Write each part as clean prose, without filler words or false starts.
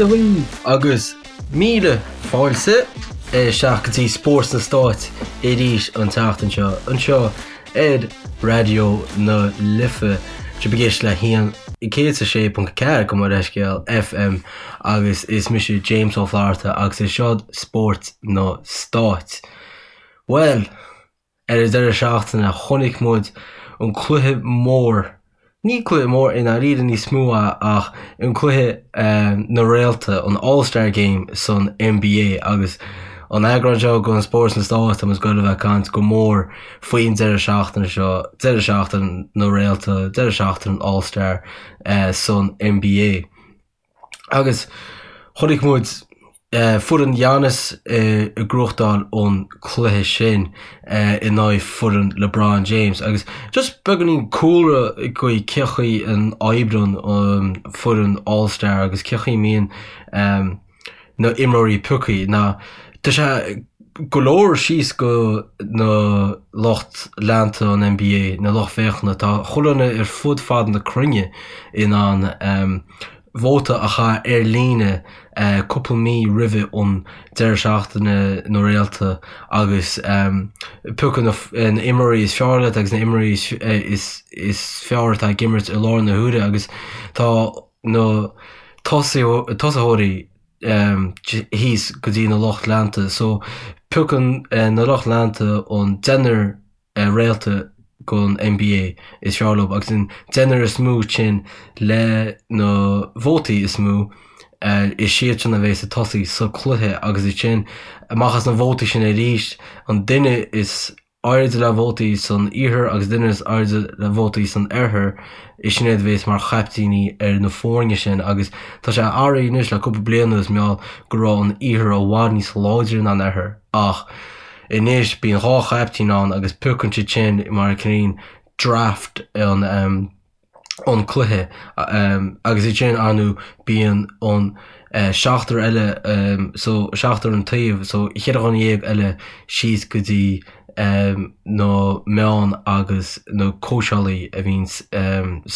Dia dhaoibh! Agus míle fáilte isteach go dtí Spórt sna Stáit arís an tseachtain seo, anseo ar Raidió na Life. Sibh ag éisteacht le 106.4 gabh mo leithscéal FM agus is mise James Ó Flatharta agus is seo Spórt na Stáit. Bhuel, Ar an deireadh seachtaine chonaic muid an cluiche mór, ní cluiche mór i ndáiríre níos mó ach an cluiche na réalta, an All Star Game san NBA agus an eagrán seo den Spórt sna Stáit tá muid ag goil a bheith ag caint go mór faoin deireadh seachtaine seo, deireadh seachtaine na réalta, deireadh seachtaine an All Star san NBA. Agus chonaic muid foireann Giannis ag gnóthachtáil an cluiche sin in aghaidh foireann LeBron James. Agus just beagáinín cúlra faoi cé chaoi a n-oibríonn an foireann All Star agus cé chaoi a mbíonn na imreoirí pioctha ná tá sé go leor síos go na lucht leanta an NBA, na lucht féachana, tá chuile dhuine ar fud fad na cruinne in ann vóta a chaitheamh ar líne cúpla mí roimhe an deireadh seachtaine na réalta agus piocadh na imreoirí is fearr leat agus na imreoirí is fearr atá ag imirt i láthair na huaire agus tá na tosaitheoirí thíos go dtí na lucht leanta so piocann na lucht leanta an deichniúr réalta gon NBA is fearr leo agus an deichniúr is mó sin le na vótaí is mó is siad sin a bheas ag tosaí sa cluiche agus ansin amach as na vótaí sin arís an duine is airde le vótaí san iarthar agus duine is airde le vótaí san oirthear, is sin iad a bhéas mar chaiptíní ar na foirne sin agus tá sé athraithe anois le cúpla bliain anuas mar gheall go raibh an iarthar i bhfad níos láidre ná an oirthear ach anois bíonn dhá chaiptín ann agus piocann siad sin mar cineál draft an an cluiche agus ansin ar ndóigh bíonn an seachtar eile so seachtar an taobh so cheithre dhuine dhéag eile síos go dtí na meáin agus na cóitseálaí a bhíonn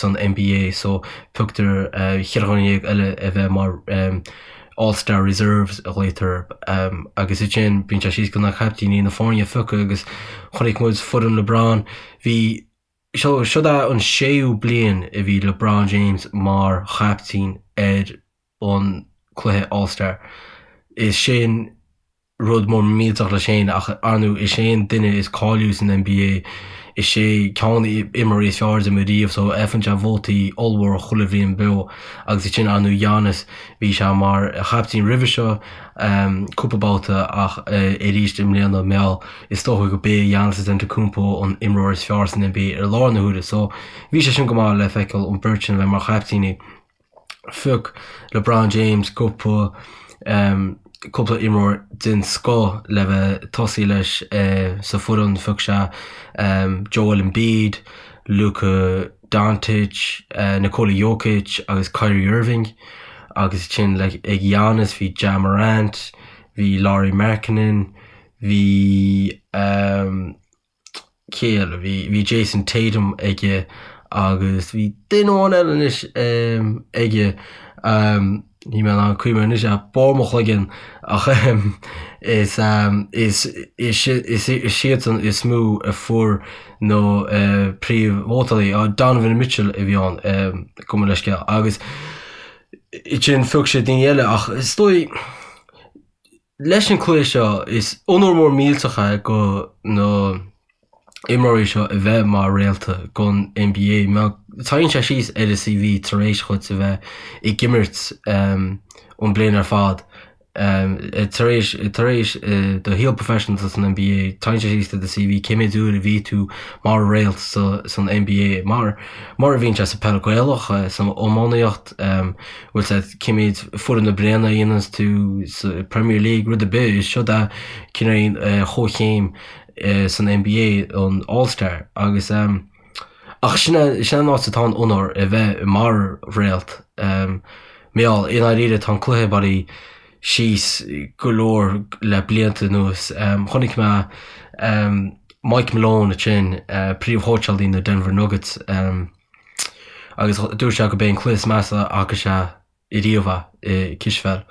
san NBA so pioctar cheithre dhuine dhéag eile a bheith mar All Star Reserves a ghlaotar agus ansin bíonn sé síos go na caiptíní na foirne a phiocadh agus chonaic muid foireann LeBron bhí So, siod é an séú bliain a bhí LeBron James mar chaiptín ar an cluiche All Star. Is sin rud mór millteach leis féin ach ar ndóigh is é an duine is cáiliúla san NBA, is é ceann de na imreoirí is fearr a d'imir riamh so faigheann sé vótaí ollmhór chuile bhliain beo agus ansin ar ndóigh Giannis bhí sé mar chaiptín roimhe seo cúpla babhta ach arís i mbliana mar gheall Is dócha go b'é Giannis Antetokounmpo an imreoir is fearr san NBA ar láthair na huaire so bhí sé sin go maith le feiceáil an beirt sin a bheith mar chaiptíní. Phioc LeBron James cúpla cúpla imreoir den scoth le bheith ag tosaí leis sa foireann. Phioc sé Joel Embiid, Luka Doncic, Nikola Jokic agus Kyrie Irving agus ansin ag Giannis bhí Ja Morant, bhí Lauri Markkanen, Bhí cé eile? Bhí bhí Jayson Tatum aige agus bhí duine amháin eile anois aige níl mé in ann cuimhneamh anois ar barr mo chloigeann ach is is is is iadsan is mó a fuair na príomhvótálaí. Donovan Mitchell a bhí ann gabh mo leithscéal agus ansin phioc sé daoine eile ach is dóigh Leis an cluiche seo, is onóir mór millteach é go na imreoirí seo a bheith mar réalta gon NBA. Mar tagann sé síos ar a CV tar éis dhuit a bheith ag imirt an bliain ar fad. Tar éis tar éis do shaol professional san NBA, tagann sé síos ar do CV cé méid uair a bhí tú mar réalt san NBA mar mar a bhíonn sé sa peil Gaelach, san iománaíocht. bhfuil sé cé méid foireann na bliana a dhéananns tú sa Premier League, rud ar bith, is siod é cineál comhchéim san NBA an All Star agus ach sin é sin an áit atá an onóir a bheith mar réalt mar gheall i ndáiríre tá an cluiche bailithe síos go leor le blianta anuas. Chonaic mé Mike Malone ansin, príomhchóitseálaí na Denver Nuggets, Agus dúirt sé go b'é an cluiche is measa a fhaca sé. riamh i cispheil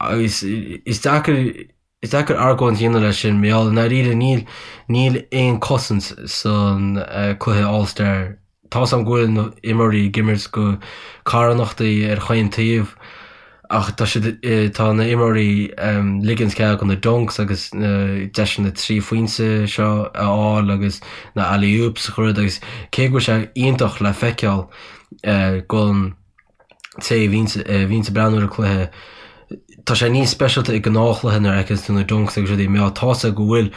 agus is deacair is deacair argóint a dhéanamh leis sin mar gheall i ndáiríre níl níl aon cosaint san cluiche All Star. Tá's a'm go bhfuil na imreoirí ag imirt go carthanachtaí ar chaon taobh ach tá siad tá na imreoirí ligint cead do na dunks agus na deiseanna 3 phointe seo a fháil agus na alley oops a chur agus cé go bhfuil sé iontach le feiceáil don té a bhíonns a bhíonns ag breathnú ar an cluiche, tá sé níos speisialta i gnáthchluiche nuair a fheiceanns tú na dunks agus rudaí mar tá's a'd go bhfuil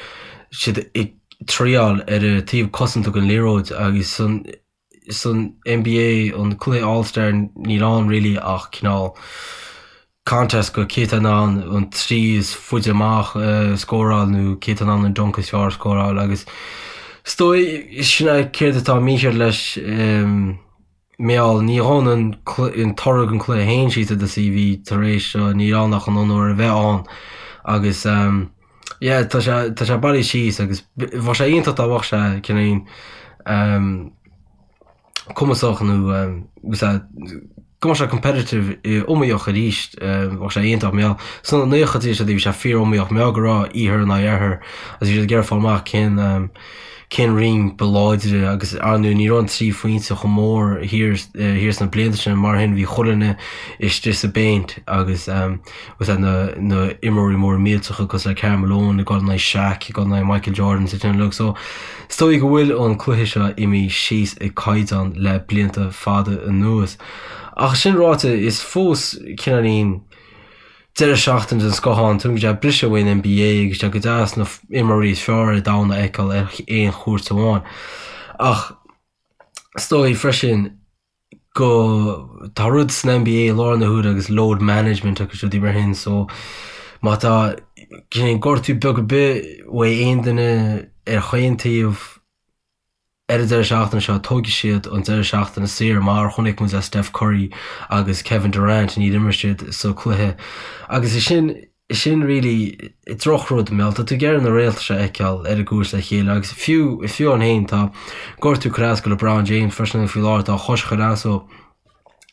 siad ag triáil ar an taobh cosanta den liathróid agus san san NBA an cluiche All Star níl ann really ach cineál contest go cé tá in ann an trí is faide amach a scóráil nó cé tá in ann an dunk is fearr a scóráil agus is dóigh sin é céard atá mícheart leis Mar gheall, ní ghabhann an toradh den chluiche féin síos i do CV tar éis seo, níl ann ach an onóir a bheith ann agus yeah tá sé tá sé bailithe síos agus bheadh sé iontach dá mbeadh sé cineál cumasach nó go mbeadh sé competitive iomaíoch arís bheadh sé iontach mar gheall sna naochaidí is bhí sé fíor iomaíoch mar gheall go raibh iarthar in aghaidh oirthear agus bhí siad ag iarraidh fáil amach cén cén roinn ba láidre agus ar ndóigh ní raibh an 3 phointe chomh mór thiar thiar sna blianta sin mar sin bhí chuile dhuine istigh sa bpéint agus agus na na imreoirí móra millteacha cosúil le Karl Malone ag dul in aghaidh Shaq ag dul in aghaidh Michael Jordan sa sin uilig so is dóigh go bhfuil an cluiche seo imithe síos i gcaighdeán le blianta fada anuas. Ach sin ráite is fós cineáilín deireadh seachtaine den scoth ann, tuigim go sé briseadh uaidh an NBA agus sé go deas na imreoirí is fearr ar domhan a fheiceáil ar aon chúirt amháin. Ach is dóigh freisin go tá rud san NBA i láthair na huaire agus load management agus rudaí mar sin so má tá cineál gortú beag ar bith uaidh aon duine ar chaon taobh ar an deireadh seachtaine seo tógfaidh siad an deireadh seachtaine saor mar a chonaic muid le Steph Curry agus Kevin Durant níor imir siad sa cluiche agus is sin sin really drochrud mar tá tú ag iarraidh na réalta seo a fheiceáil ar an gcúirt le chéile agus fiú fiú ann féin tá gortú ag cur as go LeBron James freisin faoi láthair tá a chois ag cur as dó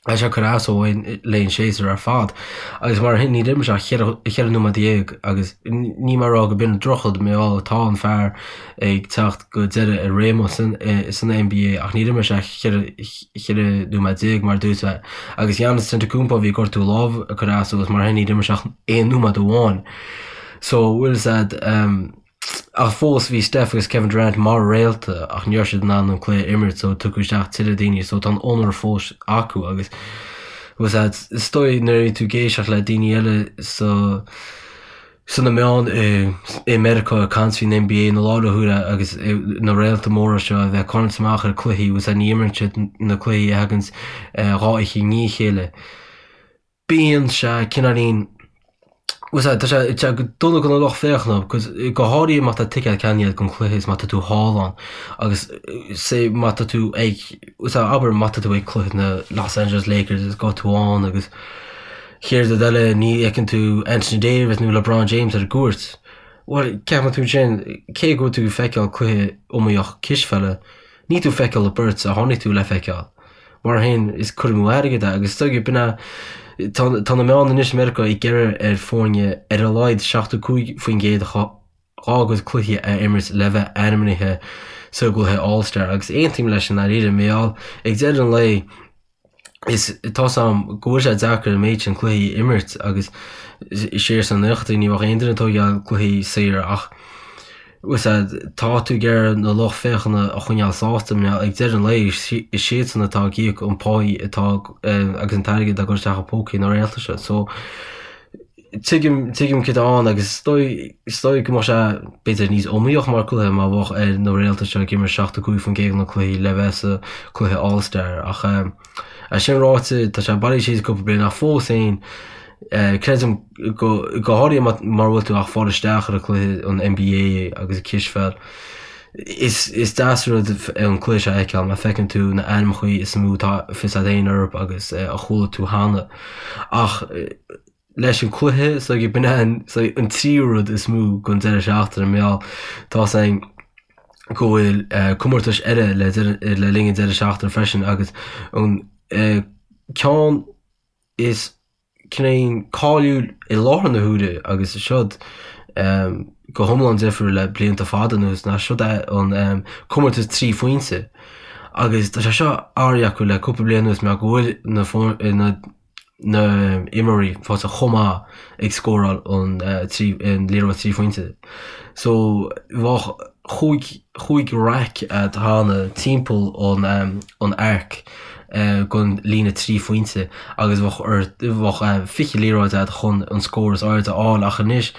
tá sé ag cur as dó le an séasúr ar fad agus mar sin níor imir sé ach 14 nóiméad agus níl mé ag rá go b'in drochrud mar gheall tá an fear ag teacht go deireadh a réime san san NBA ach níor imir sé ach 14 nóiméad mar a dúirt mé agus Giannis Antetokounmpo bhí gortú lámh ag cur as dó agus mar sin níor imir sé ach aon nóiméad amháin. So bhfuil fhios a'd um, ach fós bhí Steph agus Kevin Durant mar réalta ach ní raibh siad in ann an cluiche a imirt so tugadh isteach tuilleadh daoine so tá an onóir fós acu agus bhfuil fhios a'd is dóigh nuair a bhí tú ag éisteacht le daoine eile so sna meáin i Meiriceá ag caint faoin NBA i láthair na huaire agus na réalta móra seo a bheith ag tarraingt amach ar cluichí agus ní imríonn siad na cluichí a thaganns dhá oíche i ndiaidh a chéile. Bíonn sé cineáilín tá sé tá sé dona do na lucht féachana because go háirithe má tá ticéad ceannaithe don chluiche is má tá tú thall ann agus say má tá tú ag abair má tá tú ag cluiche na Los Angeles Lakers is go tú ann agus Chéad rud eile, ní fheiceann tú Anthony Davis nó LeBron James ar an gcúirt. Bhuel, ceapann tú ansin, cé go bhfuil tú ag feiceáil cluiche iomaíoch cispheile, níl tú ag feiceáil an bheirt a tháinig tú le feiceáil. Mar sin, is cur amú airgid é agus is dóigh b'in é, tá tá na meáin anois i Meiriceá ag iarraidh ar foirne ar a laghad 75% dá gcuid cluichí a imirt le bheith ainmnithe sa gcluiche All-Star agus aontaím leis i ndáiríre, mar gheall ag deireadh an lae, is tá's a'm go bhfuil sé deacair an méid sin cluichí a imirt agus siar sna naochaidí ní bheadh aon duine ag tógáil cluichí saor ach bhfuil fhios a'd tá tú ag iarraidh na lucht féachana a choinneáil sásta mar ag deireadh an lae is siadsan atá ag íoc an pháí atá agus an t-airgead atá ag dul isteach i pócaí na réalta seo so Tuigim, tuigim céard atá ann agus is dóigh, is dóigh go mbeadh sé b'fhéidir níos iomaíoch mar cluiche má bheadh ar na réalta seo ag imirt 75% de na cluichí le bheith sa cluiche All Star ach é sin ráite tá sé bailithe síos cúpla bliain ach fós féin creidim go, go háirithe mura bhfuil tú ach fáil isteach ar an cluiche an NBA agus an cispheil is, is deas rud an cluiche seo a fheiceáil mar feiceann tú na ainmneacha is mó atá fios a'd féin orthu agus a chuala tú cheana ach leis an cluiche so b'in é an so an tríú rud is mó don deireadh seachtaine mar gheall tá's a'inn go bhfuil comórtais eile le le linn an deireadh seachtaine freisin agus an ceann is. cineál cáiliúil i láthair na huaire agus seod go hiomlán difriúil le blianta fada anuas ná seod é an comórtas 3 phointe agus tá sé seo athraithe acu le cúpla bliain anuas mar go bhfuil na na na imreoirí fásta chomh maith ag scóráil an an liathróid 3 phointe. So bheadh chúig chúig raic agat cheana timpeall an an arc gon líne 3 phointe agus bheadh ort bheadh 20 liathróid agat chun an scór is airde a fháil ach anois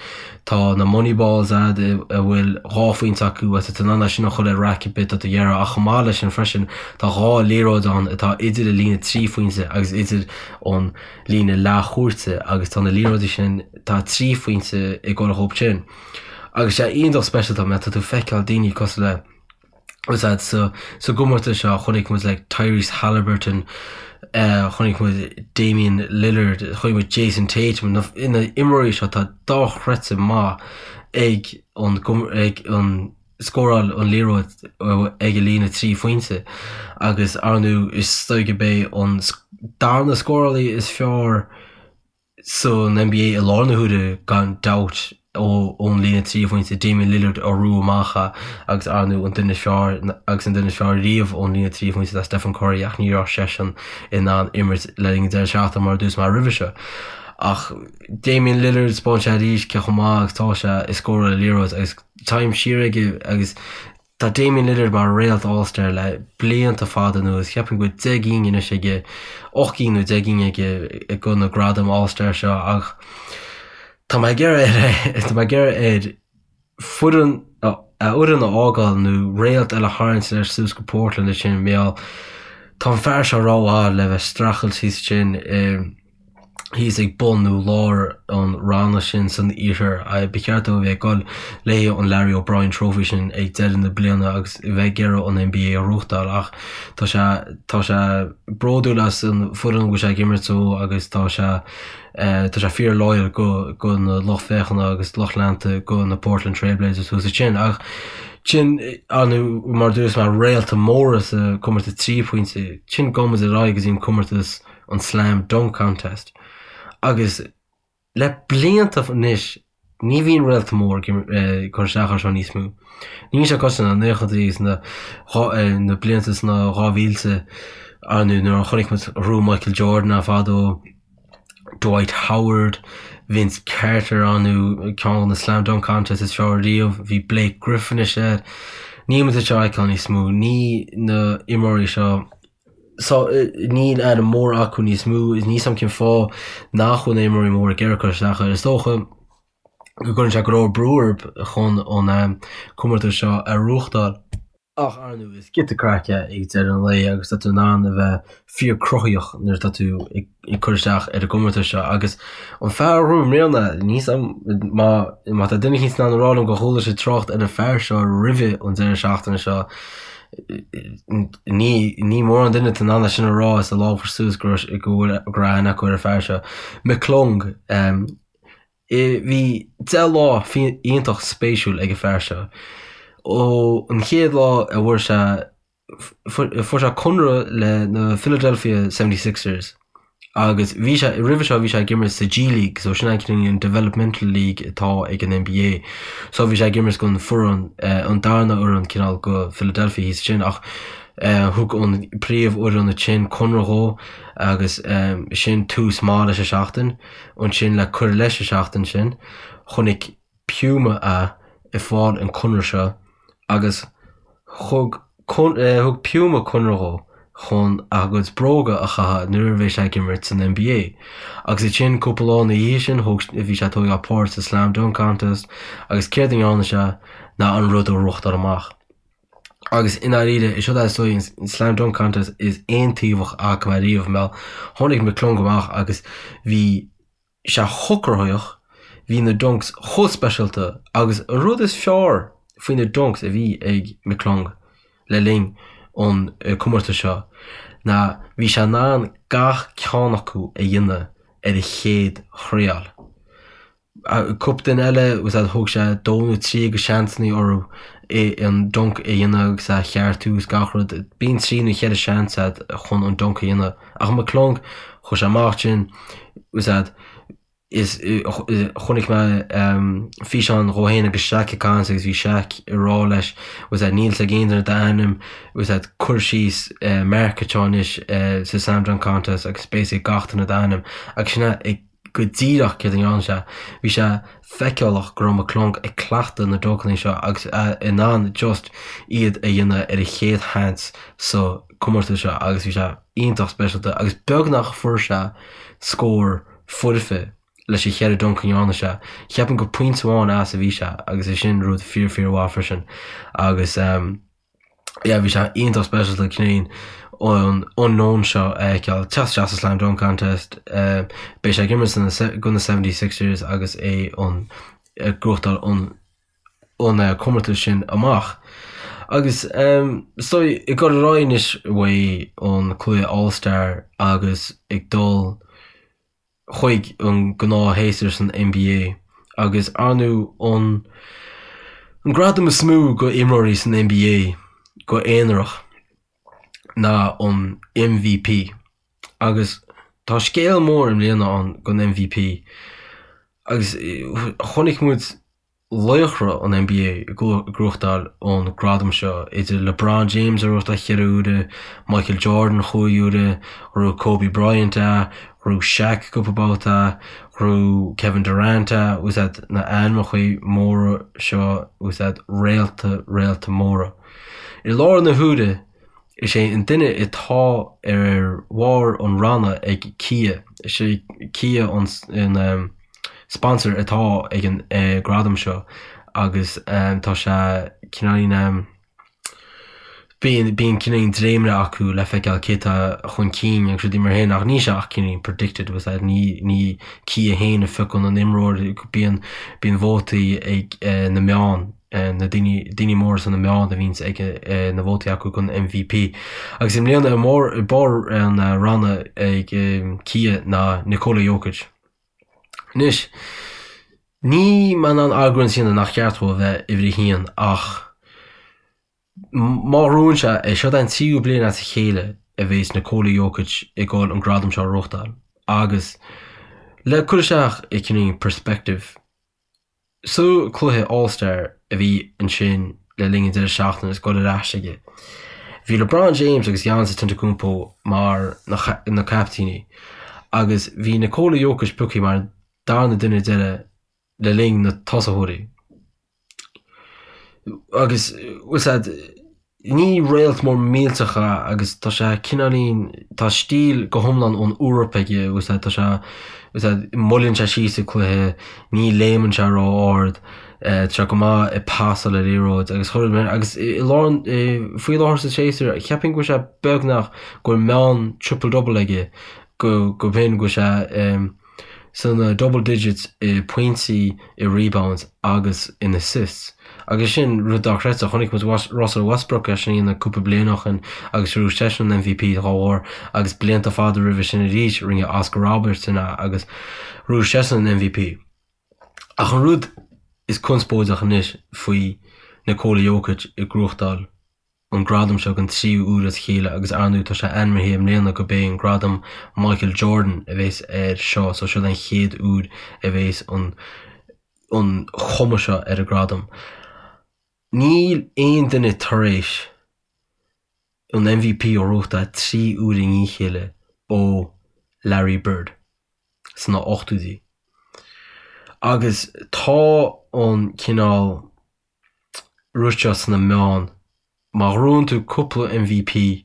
tá na money balls agat a bhfuil 2 phointe acu agus tá tú in ann é sin a chur ar raic ar bith atá tú ag iarraidh ach chomh maith leis sin freisin tá 2 liathróid ann atá idir an líne 3 phointe agus idir an líne leathchúirte agus tá na liathróidí sin tá 3 phointe ag dul dhóibh sin. Agus sé iontach speisialta mar tá tú ag feiceáil daoine cosúil le úsáid sa sa gcomórtas seo chonaic muid like Tyrese Haliburton chonaic muid Damian Lillard chonaic muid Jayson Tatum na na imreoirí seo atá dochreidte maith ag an ag an scóráil an liathróid ag an líne 3 phointe agus ar ndóigh is dóigh gurb é an darna scórálaí is fearr san NBA i láthair na huaire gan dabht ón líne 3 phointe, Damian Lillard a bhrú amach agus ar ndóigh an duine is fearr agus an duine is fearr riamh ón líne 3 phointe ná Stephen Curry ach ní raibh seisean in ann imirt le linn an deireadh seachtaine mar a dúirt mé roimhe seo. Ach Damian Lillard, 'spáin sé arís cé chomh maith agus atá sé ag scóráil an liathróid agus time siar aige agus Tá Damian Lillard mar réalt All-Star le blianta fada anuas. Cheapfainn go bhfuil 10 gcinn anois aige, 8 gcinn nó 10 gcinn aige go na gradaim All-Star seo ach tá mé ag iarraidh air tá mé ag iarraidh air foireann a fhoireann a fhágáil nó réalt eile a tharraingt leis suas go Portland ansin mar gheall tá an fear seo rómhaith le bheith streachailt thíos ansin i thíos ag bun nó lár an ranna sin san iarthar. Ba cheart dó a bheith ag dul le haghaidh an Larry O'Brien Trophy sin ag deireadh na bliana agus a bheith ag iarraidh an NBA a ghnóthachtáil ach tá sé tá sé bródúil as an foireann a bhfuil sé ag imirt dó agus tá sé tá sé fíor loyal go go na lucht féachana agus lucht leanta go na Portland Trail Blazers thuas ansin ach sin ar ndóigh mar a dúirt mé réalta móra sa comórtas 3 pointe sin gabhfaidh muid ar aghaidh go dtí an comórtas an Slam Dunk Contest agus le blianta anois ní bhíonn réalta mór ag cur isteach air seo níos mó. Níl sé cosúil na naochadaí agus na na blianta sna 2000 ar ndóigh nuair a chonaic muid rú Michael Jordan ann fadó, Dwight Howard, Vince Carter ar ndóigh ceann de na Slam Dunk Contest is fearr riamh, bhí Blake Griffin is ea. Níl muid ag seo a fheiceáil níos mó, ní na imreoirí seo So, níl ainm mór acu níos mó, is níl 's a'm cén fáth nach bhfuil na imreoirí móra ag iarraidh cur isteach air. Is dócha go gcuireann sé go leor brú orthu chun an comórtas seo a ghnóthachtáil. Ach, ar ndóigh, is giota craic é ag deireadh an lae agus tá tú in ann a bheith fíor cruthaíoch nuair atá tú ag cur isteach ar an gcomórtas seo. Agus an fear a ghnóthaigh i mbliana, níl 's a'm má má tá duine eicínt in ann a rá liom gur chuala sé trácht ar an fear seo roimhe an deireadh seachtaine seo, Ní ní mórán duine atá in ann é sin a rá is a lámh a chur suas go raibh go bhfuil go raibh aithne acu ar an fear seo. McClung Bhí 10 lá iontach spéisiúil ag an fear seo. Ó an chéad lá a bhfuair sé fuair sé conradh le na Philadelphia 76ers Agus bhí sé, roimhe seo bhí sé ag imirt sa G League, so sin an developmental league atá ag an NBA. So bhí sé ag imirt don foireann, an darna fhoireann cineál go Philadelphia thíos ansin ach thug an príomhfhoireann ansin conradh dhó agus sin tús maith leis an seachtain. Ansin le cur leis an seachtain sin, chonaic Puma é ag fáil an conradh seo agus thug thug Puma conradh dhó chun a gcuid bróga a chaitheamh nuair a bheidh sé ag imirt san NBA. Agus ansin cúpla lá ina dhiaidh sin thóg bhí sé ag tógáil páirt sa Slam Dunk Contest agus céard a ndearna sé ná an rud a ghnóthachtáil amach. Agus i ndáiríre is seo é is dóigh an Slam Dunk Contest is aontaobhach a fhaca mé riamh mar tháinig McClung amach agus bhí sé chomh cruthaitheach, bhí na dunks chomh speisialta agus an rud is fearr faoi na dunks a bhí ag McClung le linn an comórtais seo ná bhí sé in ann gach ceann acu a dhéanamh ar a chéad thriail. Cúpla duine eile, thóg sé dó nó trí de sheansanna orthu. An dunk a dhéanamh agus a cheartú is gach rud. Bíonn trí nó cheithre seans agat chun an dunk a dhéanamh. Ach McClung, chuaigh sé amach ansin, is ea, is chonaic mé físeán dhó féin agus Shaq ag caint agus bhí Shaq ag rá leis, is ea, níl a fhios ag aon duine d'ainm, is ea, cuir síos mark anseo anois sa Slam Dunk Contest agus beidh a fhios ag gach duine d'ainm agus sin é ag go díreach céard a ndearna sé. Bhí sé feiceálach go raibh McClung ag cleachtadh na duncanna seo agus in ann just iad a dhéanamh ar a chéad sheans sa comórtas seo agus bhí sé iontach speisialta agus beagnach fuair sé scór foirfe leis an cheithre dunk a ndearna sé. Cheapfainn gur pointe amháin as a bhí sé agus é sin rud fíor fíor mhaith freisin agus yeah bhí sé iontach speisialta cineál an unknown seo a fheiceáil teacht isteach sa Slam Dunk Contest. Beidh sé ag imirt do na 76ers agus é an ag gnóthachtáil an an comórtas sin amach. Agus so ag dul ar aghaidh anois uaidh an cluiche All Star agus ag dul chuig an gnáthshéasúr san NBA agus ar ndóigh an an gradam is mó go imreoirí san NBA go aonarach ná an MVP agus tá scéal mór i mbliana ann don MVP agus chonaic muid laochra an NBA ag gnóthachtáil an gradam seo, idir LeBron James a ghnóthachtáil cheithre huaire, Michael Jordan chúig huaire, ghnóthaigh Kobe Bryant é, ghnóthaigh Shaq cúpla babhta é, ghnóthaigh Kevin Durant é, bhfuil a fhios agat na ainmneacha móra seo, bhfuil a fhios agat réalta, réalta móra. I láthair na huaire, is é an duine atá ar bharr an ranna ag Kia, is é Kia an sponsor atá ag an gradam seo agus tá sé cineáilín bíonn bíonn cineáilín dréimire acu le feiceáil cé tá chun cinn agus rudaí mar sin ach níl sé ach cineáilín predicted bhfuil a fhios agat ní ní Kia féin a phiocann an imreoir bíonn bíonn vótaí ag na meáin na daoine daoine móra sna meáin a bhíonns ag na vótaí acu don MVP agus i mbliana i mbarr i barr an ranna ag Kia ná Nikola Jokic. Anois, níl mé in ann argóint a dhéanamh nach ceart dó a bheith uimhir a haon ach má ghnóthaíonn sé é, seo an tríú bliain as a chéile a bhéas Nikola Jokic ag dul an gradam seo a ghnóthachtáil agus le cur isteach i cineál perspective, Sa cluiche All Star a bhí ansin le linn an deireadh seachtaine is dul ar ais aige, bhí LeBron James agus Giannis Antetokounmpo mar na caiptíní agus bhí Nikola Jokic pioctha mar an darna duine deiridh le linn na tosaitheoirí. Agus bhfuil a fhios agat, Ní réalt mór millteach é agus tá sé cineáilín, tá stíl go hiomlán ón Eoraip aige, bhfuil a fhios agat, tá sé, bhfuil a fhios agat, moilleann sé síos an cluiche, ní léimeann sé ró-ard, tá sé go maith ag pasáil an liathróid agus chuile rud agus i lár an, faoi láthair sa séasúr, cheapfainn go bhfuil sé beagnach go bhfuil meán triple double aige go, go b'shin go bhfuil sé. sna double digits i pointí, i rebounds agus in assists. Agus sin rud dochreidte. Chonaic muid Russell Westbrook é sin a dhéanamh cúpla bliain ó shin agus ghnóthaigh seisean an MVP dá bharr agus blianta fada roimhe sin arís rinne Oscar Robertson é agus ghnóthaigh seisean an MVP. Ach an rud is conspóideach anois faoi Nikola Jokic ag gnóthachtáil an gradam seo don tríú huair as a chéile agus ar ndóigh tá sé ainmnithe i mbliana go b'é an gradam Michael Jordan a bhéas air seo so seo an chéad uair a bhéas an an chuma seo ar an gradam. Níl aon duine tar éis an MVP a ghnóthachtáil 3 uair i ndiaidh a chéile ó Larry Bird sna 80idí. Agus tá an cineál rud seo sna meáin, má ghnóthaíonn tú cúpla MVP,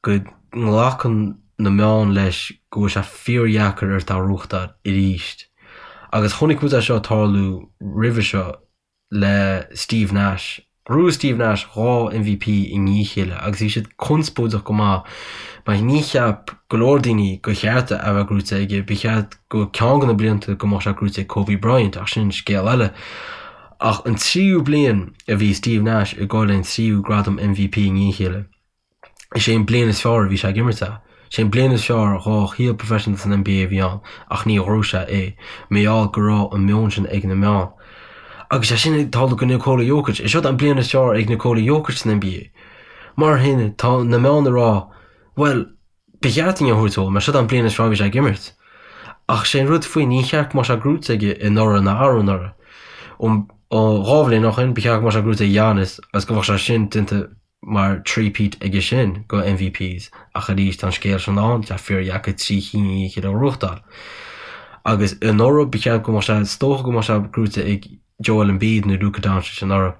go nglacann na meáin leis go bhfuil sé fíordheacair ort é a ghnóthachtáil arís. Agus chonaic muid é seo tarlú roimhe seo le Steve Nash. Ghnóthaigh Steve Nash 2 MVP i ndiaidh a chéile agus bhí siad conspóideach go maith mar ní cheap go leor daoine gur cheart a bheith gnóite aige, ba cheart go ceann de na blianta go mbeadh sé gnóite ag Kobe Bryant ach sin scéal eile. Ach an tríú bliain a bhí Steve Nash ag dul an tríú gradam MVP i ndiaidh a chéile, is é an bliain is fearr a bhí sé ag imirt é. Is é an bliain is fearr dhá shaol professional san NBA a bhí ann ach ní ghnóthaigh sé é, mar gheall go raibh an meon sin ag na meáin. Agus sé sin ag tarlú go Nikola Jokic. Is seod an bliain is fearr ag Nikola Jokic san NBA. Mar shin, tá na meáin ag rá, bhuel, ba cheart dúinn a thabhairt dó, mar seod an bliain is fearr a bhí sé ag imirt. Ach sé an rud faoi, ní cheart go mbeadh sé gnóite aige anuraidh ná arú anuraidh. Ó 2 bhliain ó shin, ba cheart go mbeadh sé gnóite ag Giannis agus go mbeadh sé sin déanta mar three-peat aige sin go MVPs ach arís tá an scéal sin ann, tá fíordheacair 3 chinn i ndiaidh a chéile a ghnóthachtáil. Agus anuraidh ba cheart go mbeadh sé, is dócha go mbeadh sé gnóite ag Joel Embiid nó Luka Doncic anuraidh.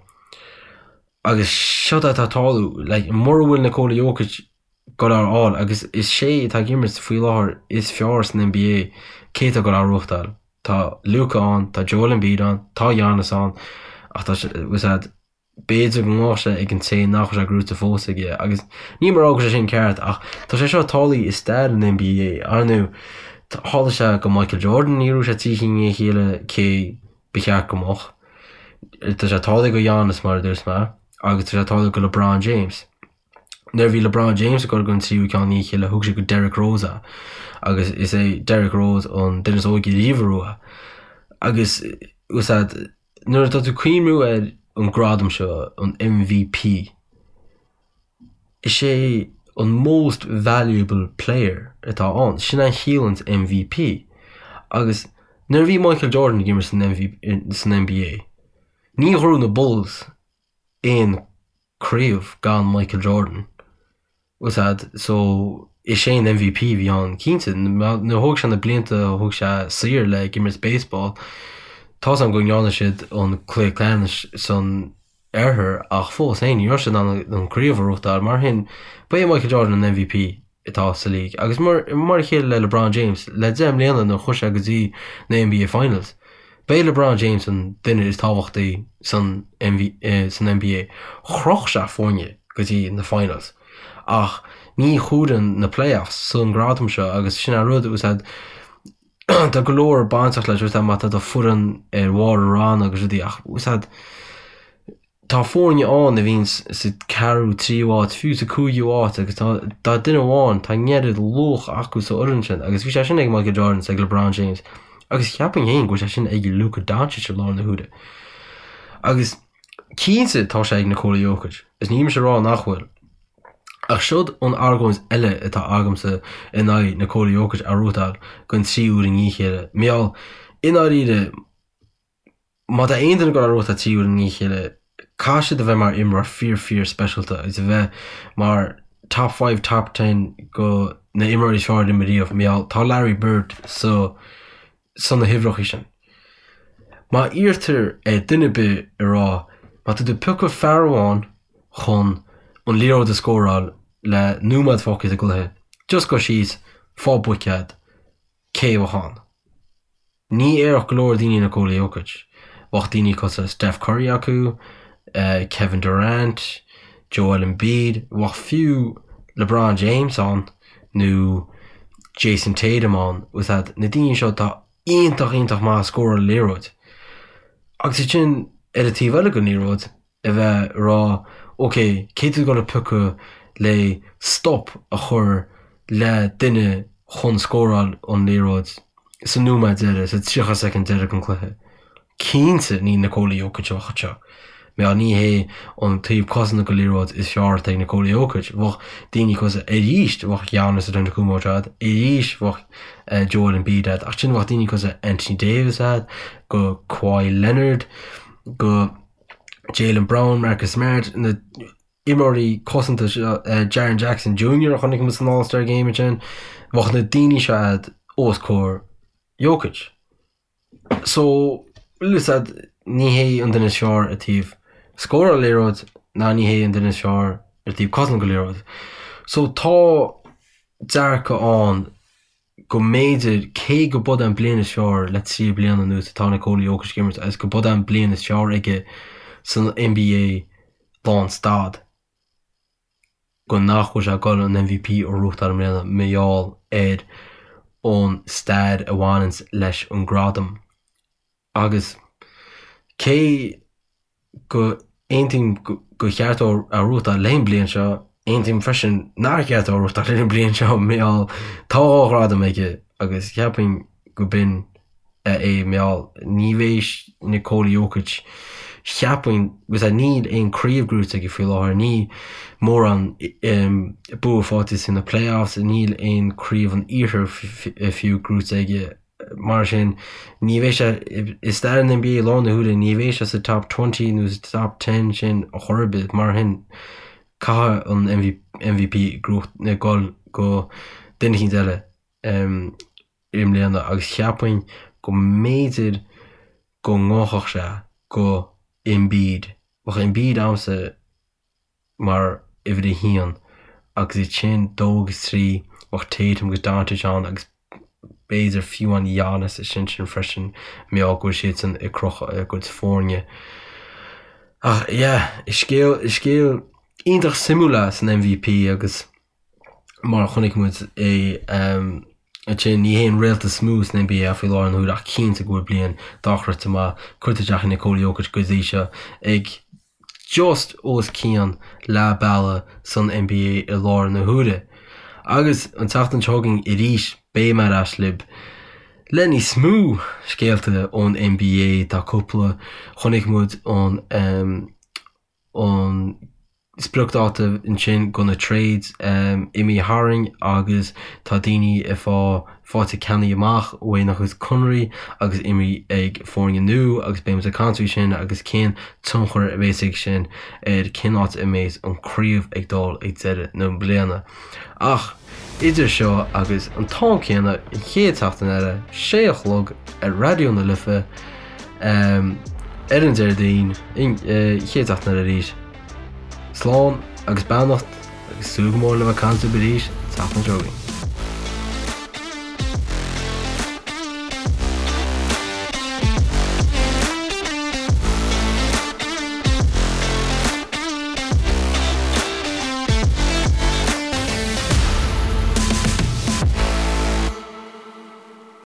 Agus seod atá ag tarlú, like, mura bhfuil Nikola Jokic ag goil á fháil agus is sé atá ag imirt faoi láthair is fearr san NBA, cé atá ag goil á ghnóthachtáil? Tá Luka ann, tá Joel Embiid ann, tá Giannis ann ach tá sé, bhfuil a fhios a'd, B'fhéidir go mbeadh sé ag an té nach bhfuil sé gnóite fós aige agus níl mé ag rá go bhfuil sé sin ceart ach tá sé seo tarlaithe i stair an NBA. Ar ndóigh, tharla sé go Michael Jordan, ní raibh sé 3 chinn i ndiaidh a chéile cé ba cheart go mbeadh. Tá sé tarlaithe go Giannis mar a dúirt mé agus tá sé tarlaithe go LeBron James. Nuair a bhí LeBron James ag dul don tríú ceann i ndiaidh a chéile thug sé go Derrick Rose é agus is é Derrick Rose an duine is óige riamh a ghnóthaigh é. Agus bhfuil a fhios a'd, Nuair atá tú ag cuimhniú ar an gradam seo, an MVP, is é an Most Valuable Player atá ann. Sin é a chiallaíonns MVP. Agus nuair a bhí Michael Jordan ag imirt san NBA, ní ghnóthaigh na Bulls aon craobh gan Michael Jordan. Bhfuil a fhios a'd, so is é an MVP a bhí ann, cinnte. Nuair a thóg sé na blianta a thóg sé saor le ag imirt baseball, tá 's a'm go ndearna siad an cluiche ceannais san oirthear ach fós féin ní raibh siad in ann an craobh a ghnóthachtáil. Mar sin, ba é Michael Jordan an MVP atá sa league. Agus mar mar a chéile le LeBron James, le 10 mbliana nuair a chuaigh sé go dtí na NBA Finals, ba é LeBron James an duine is tábhachtaí san san NBA. Chroch sé foirne go dtí na Finals. Ach ní chomhaireann na playoffs san gradam seo agus sin an rud, bhfuil a fhios a'd, tá go leor bainteach leis, bhfuil a fhios a'd, má tá do foireann ar bharr an ranna agus rudaí ach bhfuil a fhios a'd, Tá foirne ann a bhíonn sa ceathrú, tríú áit, fiú sa cúigiú áit agus tá tá duine amháin, tá an oiread luach acu sa fhoireann sin agus bhí sé sin ag Michael Jordan is ag LeBron James agus cheapfainn féin go bhfuil sé sin ag Luka Doncic i láthair na huaire. Agus cinnte tá sé ag Nikola Jokic is níl mise ag rá nach bhfuil. Ach seod an argóint eile atá agamsa in aghaidh Nikola Jokic a ghnóthachtáil don tríú huair i ndiaidh a chéile, mar gheall, i ndáiríre, Má tá aon duine ag dul á ghnóthachtáil tríú huair i ndiaidh a chéile, caithfidh siad a bheith mar imreoir fíor fíor speisialta agus a bheith mar top five, top ten go na imreoirí is fearr a d'imir riamh, mar gheall tá Larry Bird sa san na huimhreacha sin. Má iarrtar ar duine ar bith a rá má tá tú ag piocadh fear amháin chun an liathróid a scóráil le nóiméad fágtha sa gcluiche, just gabh síos, fág buicéad, cé a bheadh ann? Ní déarfadh go leor daoine Nikola Jokic. Bheadh daoine cosúil le Steph Curry acu, Kevin Durant, Joel Embiid, bheadh fiú LeBron James ann nó Jayson Tatum ann. Bhfuil a fhios a'd, na daoine seo atá iontach iontach maith ag scóráil an liathróid. Agus ansin ar an taobh eile den liathróid, a bheith ag rá ok, cé tú ag dul a piocadh le stop a chur le duine chun scóráil an liathróid sa nóiméad deiridh, sa 30 soicind deiridh den cluiche. Cinnte ní Nikola Jokic a bheadh anseo. Mar ní hé an taobh cosanta den liathróid is fearr atá ag Nikola Jokic. Bheadh daoine cosúil arís, bheadh Giannis Antetokounmpo agat, arís bheadh Joel Embiid agat, ach ansin bheadh daoine cosúil Anthony Davis agat, go Kawhi Leonard, go Jaylen Brown, Marcus Smart, na imreoirí cosanta seo, Jaren Jackson Jr. a chonaic muid san All-Star Game ansin, bheadh na daoine seo agat os comhair Jokic. So, bhfuil a fhios a'd, ní hé an duine is fearr ar taobh scóráil liathróid ná ní hé an duine is fearr ar taobh cosaint go liathróid. So tá dearcadh ann go mb'fhéidir, cé go b'é an bliain is fearr le 3 bliana anuas atá Nikola Jokic ag imirt agus go b'é an bliain is fearr aige san NBA lán stad, go nach bhfuil sé ag dul an MVP a ghnóthachtáil i mbliana mar gheall ar an stair a bhaineanns leis an gradam. Agus cé go aontaím gur cheart dó a ghnóthachtáil le an bliain seo, aontaím freisin nár cheart dó a ghnóthachtáil le an bliain seo mar gheall tá 2 ghradam aige agus cheapfainn go b'in. É mar gheall ní bheidh Nikola Jokic, cheapfainn, agus níl aon craobh gnóite aige faoi láthair, níl mórán bua faighte sna playoffs, níl aon craobh an iarthair fiú gnóite aige, mar sin ní bheidh sé i stair an NBA i láthair na huaire, ní bheidh sé sa top 20 nó sa top 10 sin ar chor ar bith, mar sin caithfidh an MVP dul go duine eicínt eile. i mbliana agus cheapfainn go mb'fhéidir go ngabhfadh sé go Embiid. Bheadh Embiid a'msa mar uimhir a haon agus ansin dó agus trí bheadh Tatum agus Doncic ann agus b'fhéidir fiú amháin Giannis ansin sin freisin mar gheall go bhfuil siadsan ag crochadh a gcuid foirne. Ach yeah, is scéal, is scéal iontach suimiúil é san MVP agus mar a chonaic muid é ansin, ní hé an réalta is mó san NBA faoi láthair na huaire ach cinnte go bhfuil bliain dochreidte maith curtha isteach ag Nikola Jokic go dtí seo ag just os cionn leath bealaigh san NBA i láthair na huaire. Agus an tseachtain seo chugainn arís beidh mé ar ais libh le níos mó scéalta ón NBA. Tá cúpla, chonaic muid an an spriocdháta ansin do na trades imithe tharainn agus tá daoine ag fá faighte ceannaithe amach uaidh a gcuid conarthaí agus imithe ag foirne nua agus beidh muid ag caint faoi sin agus cén tionchar a bheas ag sin ar cén áit a mbeidh an craobh ag dul ag deireadh na bliana. Ach idir seo agus an t-am céanna an chéad tseachtain eile, sé a chlog ar Raidió na Life ar an Déardaoin, an chéad tseachtain eile arís. Slán agus beannacht agus súil go mór le bheith ag caint libh arís an tseachtain seo chugainn.